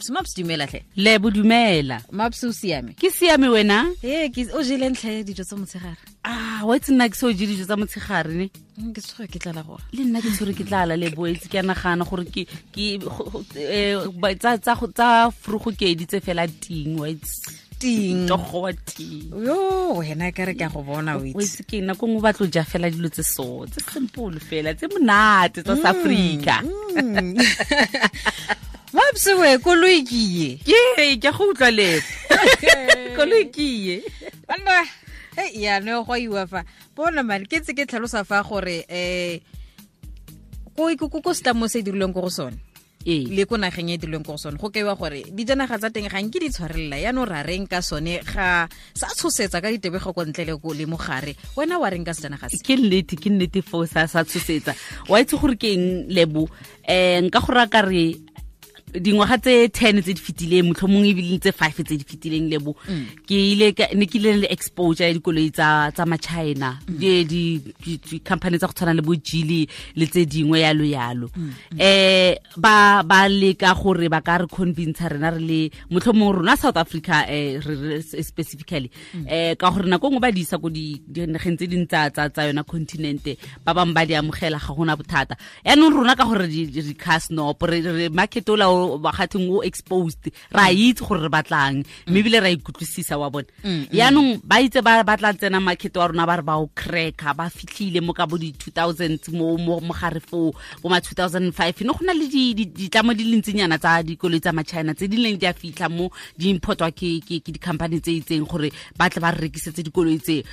Maps. Maps, dumela tlhe. Lebo, dumela. Maps, o siame? Ke siame, wena? Ee, ke o jele ntlha dijo tsa motshegare? Ah, wa itse nna ke se o je dijo tsa motshegare ne. Ke tshwere ke tlala gore. Le nna ke tshwere ke tlala, Lebo, itse ke a nagana gore ke tsa frugo ke di tse fela ting, wa itse. Ting. Togo wa ting. Yo, wena ka re ka go bona, o itse. O itse ke nako nngwe ba tlo ja fela dilo tse so, tse simple fela, tse monate tsa South Africa. Mapsewe, koloi ke ye. Ke go utlwa, Lebo. Koloi ke ye. Banna, hey, ya no go iwa fa. Bona man, ke tse ke tlhalosa fa gore ko setlamo se dirilweng ko go sone. Le ko nageng e dirilweng ko go sone, go kaiwa gore dijanaga tsa teng ga nke di tshwarelela, yaanong ra reng ka sone? Ga sa tshosetsa ka ditebego ko ntle le le mogare, wena wa reng ka sejanaga se? Ke nnete, ke nnete foo, sa tshosetsa. Wa itse gore ke eng, Lebo? Nka go raya ka re dingwaga tse 10 tse di fetileng, motlhomong ebile tse 5 tse di fetileng, Lebo, ke ile ne ke ile le exposure ya dikoloi tsa ma-China, di-company tsa go tshwana le bo Geely le tse dingwe, yalo yalo. Ba leka gore ba ka re convince rena re le motlhomong rona South Africa, re specifically, ka gore nako nngwe ba di isa ko dinageng tse ding tsa yona continent, ba bangwe ba di amogela, ga gona bothata. Yaanong rona ka gore di-car snob, re market ola ba gatheng o exposed, ra itse gore re batlang, mme ebile ra ikutlwisisa, wa bona. Yaanong ba itse ba tla tsena market wa rona, ba re ba o cracka. Ba fitlhile mo ka bo di-2000 mo mogare foo, bo ma 2005, ne go na le ditlamo di le ntsinyana tsa dikoloi tsa ma-China tse di leng di a fitlha mo, di importwa ke di-company tse itseng gore ba tle ba re rekisetse dikoloi tse.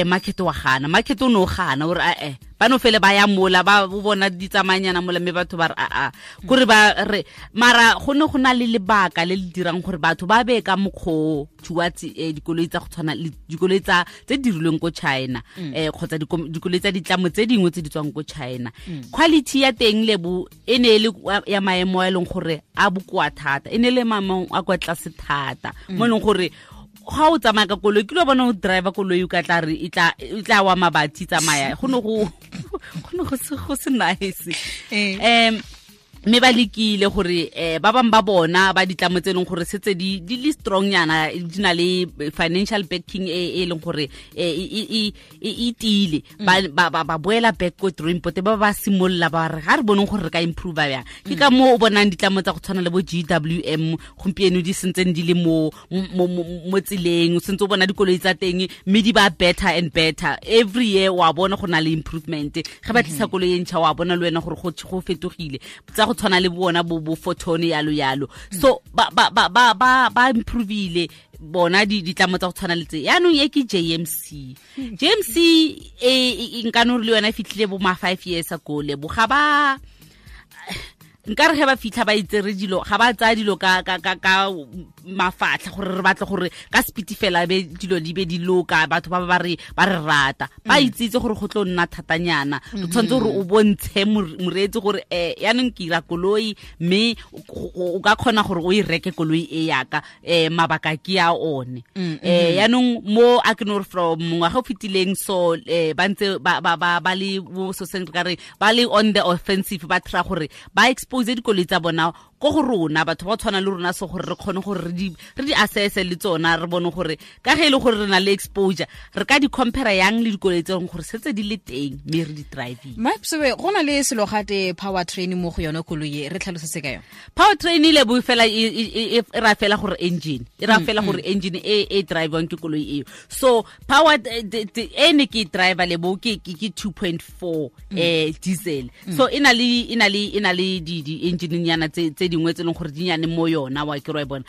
Market wa gana, market o ne o gana ore ae ba no fele ba ya mola, ba bona di tsamayanyana mola, mme batho ba re aa kore ba re. Mara go ne go na le lebaka le le dirang gore batho ba be ka mokgwa towards dikoloi tsa go tshwana le dikoloi tsa tse dirilweng ko China, kgotsa dikoloi tsa ditlamo tse dingwe tse di tswang ko China. Quality ya teng, Lebo, e ne e le ya maemo a e leng gore a bokoa thata, e ne le maemo a kwa tlase thata, mo e leng gore ga o tsamaya ka koloi, ke lo bona o driver koloi, o ka tla re e tla wa mabathi tsamaya. Go ne go se nice. Mme ba lekile gore ba bangwe ba bona ba ditlamo tse e leng gore setse di le strong nyana, di na le financial backing e leng gore e tiile, ba boela back ko drawing board, ba simolola ba re ga re boneng gore re ka improve bjang. Ke ka moo o bonang ditlamo tsa go tshwana le bo GWM gompieno di sentseng di le mo tseleng, o sentse o bona dikoloi tsa teng, mme di ba better and better every year. Wa bona go na le improvement ge ba tlisa koloi e ntšha, wa bona le wena gore go fetogile, tsa go tshwana le bona bo Foton, yalo yalo. So ba improvile bona ditlamo tsa go tshwana le tse. Yaanong e ke JMC. JMC e nka no re le yona e fitlhile bo ma 5 years ago, Lebo. Ga ba nka re ge ba fitlha ba itsere dilo, ga ba tsaya dilo ka mafatlha gore re batle gore ka speed fela be dilo di be di loka, batho ba re ba re rata. Ba itsitse gore go tlo nna thatanyana, o tshwanetse gore o bontshe moreetsi gore yaanong ke ira koloi, mme o ka kgona gore o e reke koloi e yaka, mabaka ke a one. Yaanong mo a ke no re from ngwaga o fetileng, so ba ntse ba le so seng re ka re ba le on the offensive, ba try gore ba expose dikoloi tsa bona ko go rona batho ba tshwana le rona, so gore re kgone gore re di assess le tsona, re bone gore ka ge e le gore re na le exposure, re ka di compare yang le dikoloi tse leng gore setse di le teng mme re di driving. Mapsewe, go na le selo gate power train mo go yone koloi e, re tlhalosetse ka yone. Power train ile bo fela e ra fela gore engine, e ra fela gore engine e drivewang ke koloi eo. So power e ne ke driver, Lebo, ke 2.4 diesel. So e na le di engine nyana tse dingwe tse leng gore di nyane mo yona, wa ke ro e bona,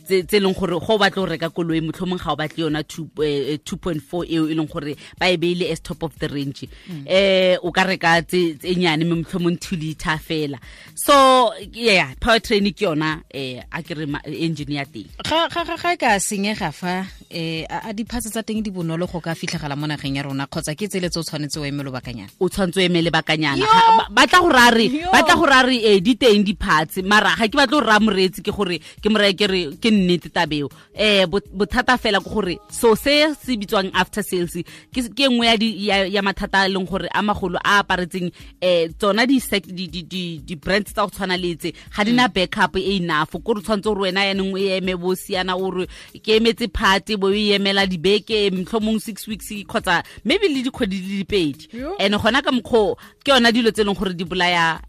tse leng gore go batla go reka koloi, motlhomong ga o batle yona 2.4 eo e leng gore ba e beile as top of the range, o ka reka tse nyane, mme motlhomong 2 liter fela. So yeah, power train ke yona, a ke re engine ya teng. Ga e ka senyega fa, a di-parts tsa teng di bonolo go ka fitlhegala mo nageng ya rona, kgotsa ke tsele tse o tshwanetse o eme lobakanyana? O tshwanetse o eme lebakanyana. Ba tla go ra re di teng di di-parts mara ga ke batle go raya moreetsi ke gore ke mo reye ke re ke nnete tabeo. Bothata fela ke gore so se se bitswang after sales ke nngwe ya mathata a leng gore a magolo a aparetseng tsona di brands tsa go tshwana le tse ga di na backup e enough. Ko re tshwanetse gore wena yanong o eme bo siana, o re ke emetse part, bo e emela dibeke, mohlomong 6 weeks kgotsa maybe le dikgwedi di le pedi. And gona ka mokgwa ke yona dilo tse e leng gore di bolaya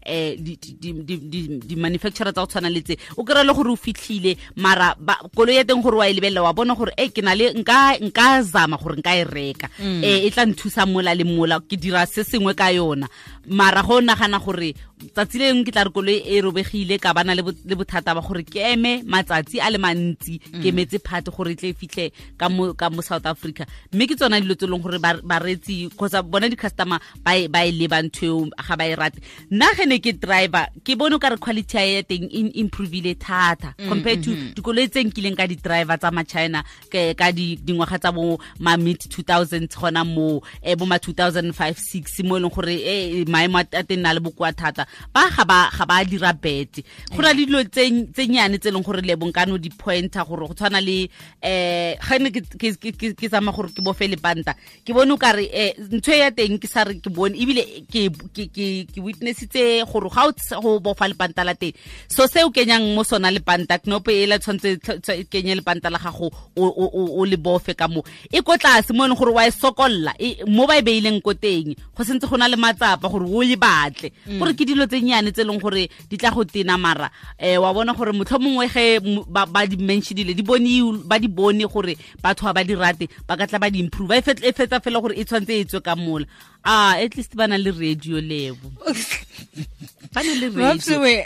di-manufacturer tsa go tshwana le tse. O kry-e le gore o fitlhile, mara koloi ya teng gore wa e lebelela, wa bona gore e ke na le nka zama gore nka e reka, e tla nthusa mola le mola, ke dira se sengwe ka yona. Mara go nagana gore tsatsi le lengwe ke tla re koloi e robegile, ka bana le bothata ba gore ke eme matsatsi a le mantsi ke emetse part gore e tle e fitlhe ka mo South Africa. Mme ke tsona dilo tse e leng gore bareetsi kgotsa bona di-customer ba e leba ntho eo, ga ba e rate. Nna ge ne ke driver, ke bone o ka re quality ya teng e improvile thata compared to dikoloi tse nkileng ka di-driver tsa ma-China ka dingwaga tsa bo ma mid 2000s, gona mo bo ma 2005 6, mo e leng gore maemo a teng na le bokoa thata, ba ga ba dira bete. Go na le dilo tse nyane tse e leng gore le bonkano di pointer gore go tshwana le ga ne ke tsamaya gore ke bofe lepanta, ke bone o kare ntho e ya teng, ke sa re ke bone ebile ke witnessitse gore ga o go bofa lepanta la teng, so se o kenyang mo sona lepanta, knopo e la tshwanetse kenye lepanta la gago o le bofe ka mo, e ko tlase mo e leng gore wa e sokolla mo ba e beileng ko teng, go sentse go na le matsapa gore o e batle. Gore ke dilo tse nyane tse e leng gore di tla go tena, mara wa bona gore motlho mongwe ge ba di mentionile, di bone, ba di bone gore batho ga ba di rate, ba ka tla ba di improve. E fetsa fela gore e tshwanetse e tswe ka mola. At least ba na le radio, lebo ba na le radio. Mapsiwe,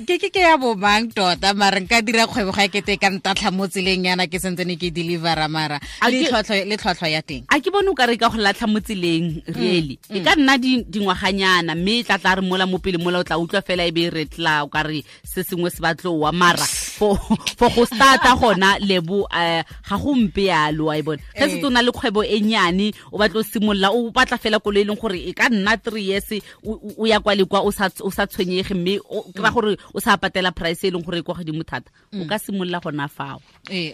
ke ya bo mang tota? Mara nka dira kgwebo ga kete ka ntatlha mo tseleng yana ke sentse ne ke delivera, mara le tlhwatlhwa ya teng? A ke bone o ka re ka go latlha mo tseleng really. E ka nna dingwaganyana, mme e tla tla re mola mo pele mola o tla utlwa fela e be e re tla o ka re se sengwe se batlowa. Mara for go starta gona, lebo, ga go mpe yalo, wa e bona ge se o na le kgwebo e nyane, o batla o simolola, o batla fela koloi e leng gore e ka nna 3 years o ya kwa le kwa, o sa tshwenyege, mme o kry-a gore o sa patela price e leng gore e kwa godimo thata, o ka simolola gona fao.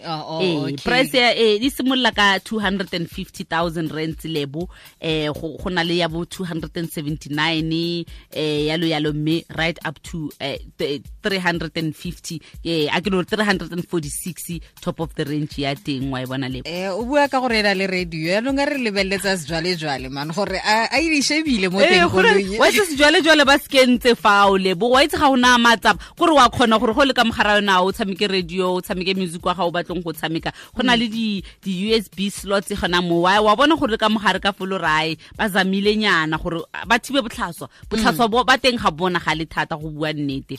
Oh, Price ya di simolola ka 250,000 rands, lebo. Go na le ya bo 279, yalo yalo, mme right up to 350, a ke no 346, top of the range ya teng, wa e bona, lebo. O bua ka gore e na le radio, yaanong a re lebeletsa sejwalejwale man gore a e di shebile mo teng koloi. Wa itse sejwalejwale ba se kentse fao, lebo, wa itse ga o na matsapa kore wa kgona gore go le ka mogara yona o tshameke radio, o tshameke music wa ga o batlong go tshameka. Go na le di USB slots gona mo, wa bona gore le ka mogare ka folo rae ba zamile nyana gore ba thibe botlhaswa. Botlhaswa bo ba teng ga bona ga le thata, go bua nnete.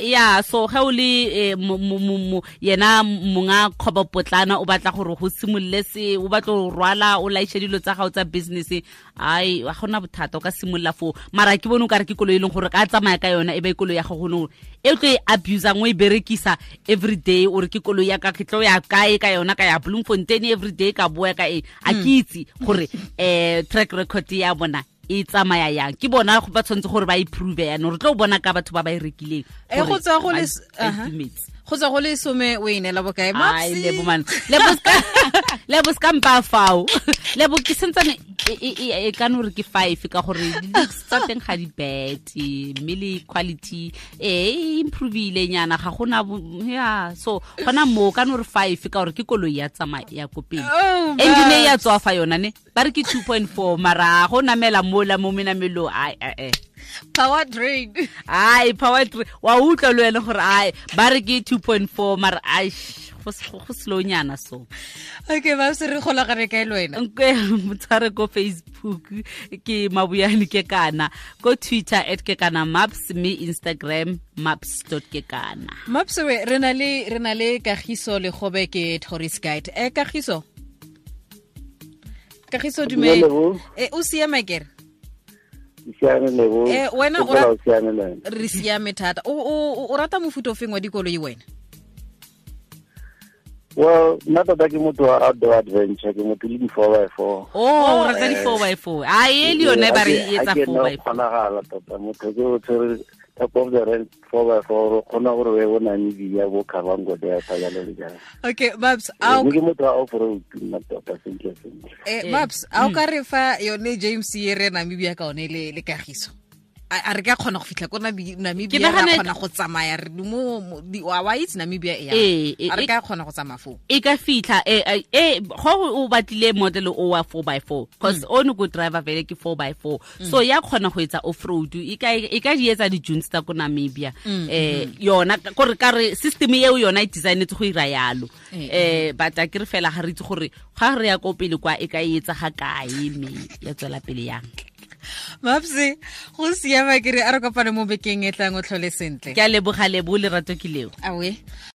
Ya, so ge o le yena monga kgwebo potlana, o batla gore go simolole se o batla go rwala, o laiše dilo tsa gago tsa business, ai, ga gona bothata, o ka simolola foo. Mara ke bone o kare ke koloi e leng gore ka tsamaya ka yona, e be koloi ya gago gone e tlo e abusang, o e berekisa every day, o re ke koloi ya ka, ke tlo ya kae ka yona, ka ya Bloemfontein every day, ka boa ka e. A ke itse gore track record ya bona e tsamaya yang. Ke bona ba tshwanetse gore ba improve yanong, re tlo bona ka batho ba ba e rekileng Go tswa go le gore ba itumetse. Go tswa go le 10, o e neela bokae? Ai, Mapsi? Lebo man, lebo ska mpa fao, lebo, ke sentsane e ka no re ke 5, ka gore di-looks tsa teng ga di bad, mme le quality e improvile nyana, ga gona ya. So gona mo ka no re 5, ka gore ke koloi ya tsamaya ya ko pele. Oh, Engine e ya Maps. tswa fa yona ne ba re ke 2.4, mara go namela mola mo menamelong, ai ai. Power drain. Ai, power train, wa utlwa le wena gore ai ba re ke 2.4, mara ai, go slow nyana so. Okay, Maps, re golagane kae le wena? Nke motshware ko Facebook ke Mabuyane ke kana, ko Twitter @kekana maps, mme Instagram maps.kekana. Mapsewe, re na le Kagiso Legobe, ke tourist guide. Kagiso, Kagiso, dumela. Lebo. O siame kere? Siame, Lebo. Wena o Ke o siame le wena? Re siame thata. O rata mofuta o feng wa dikoloi wena? Well, nna tota ke motho wa outdoor adventure, ke motho le di-4x4. Oh, o rata di 4x4, a e le yone ba re e etsa 4 4x4. Kgonagala tota motho ke o tshwere Top of the range 4x4, o kgona gore o ye bo Namibia, bo Kavango Delta, jalo le jalo. Okay, Babs, a ke motho wa off road nna tota sentle sentle. Babs, a o ka re fa yone James e re Namibia ka one le kagiso? A re ka kgona go fitlha ko Namibia, ra kgona go tsamaya re mo wa itse Namibia e yang. A re ka kgona go tsamaya foo? E ka fitlha go o batlile model o wa 4x4 because o ne go driver vele ke 4x4, so ya kgona go etsa off road, e ka di etsa di-dunes tsa ko Namibia. Yona gore ka re system eo yona e designetse go ira yalo. But a ke re fela ga re itse gore ga re ya ko pele kwa e ka etsa ga kae, mme ya tswela pele yang. Mapse, go siama ke re a re kopane mo bekeng e tlang, o tlhole sentle. Ke a leboga, Lebo, lerato ke leo. Awe.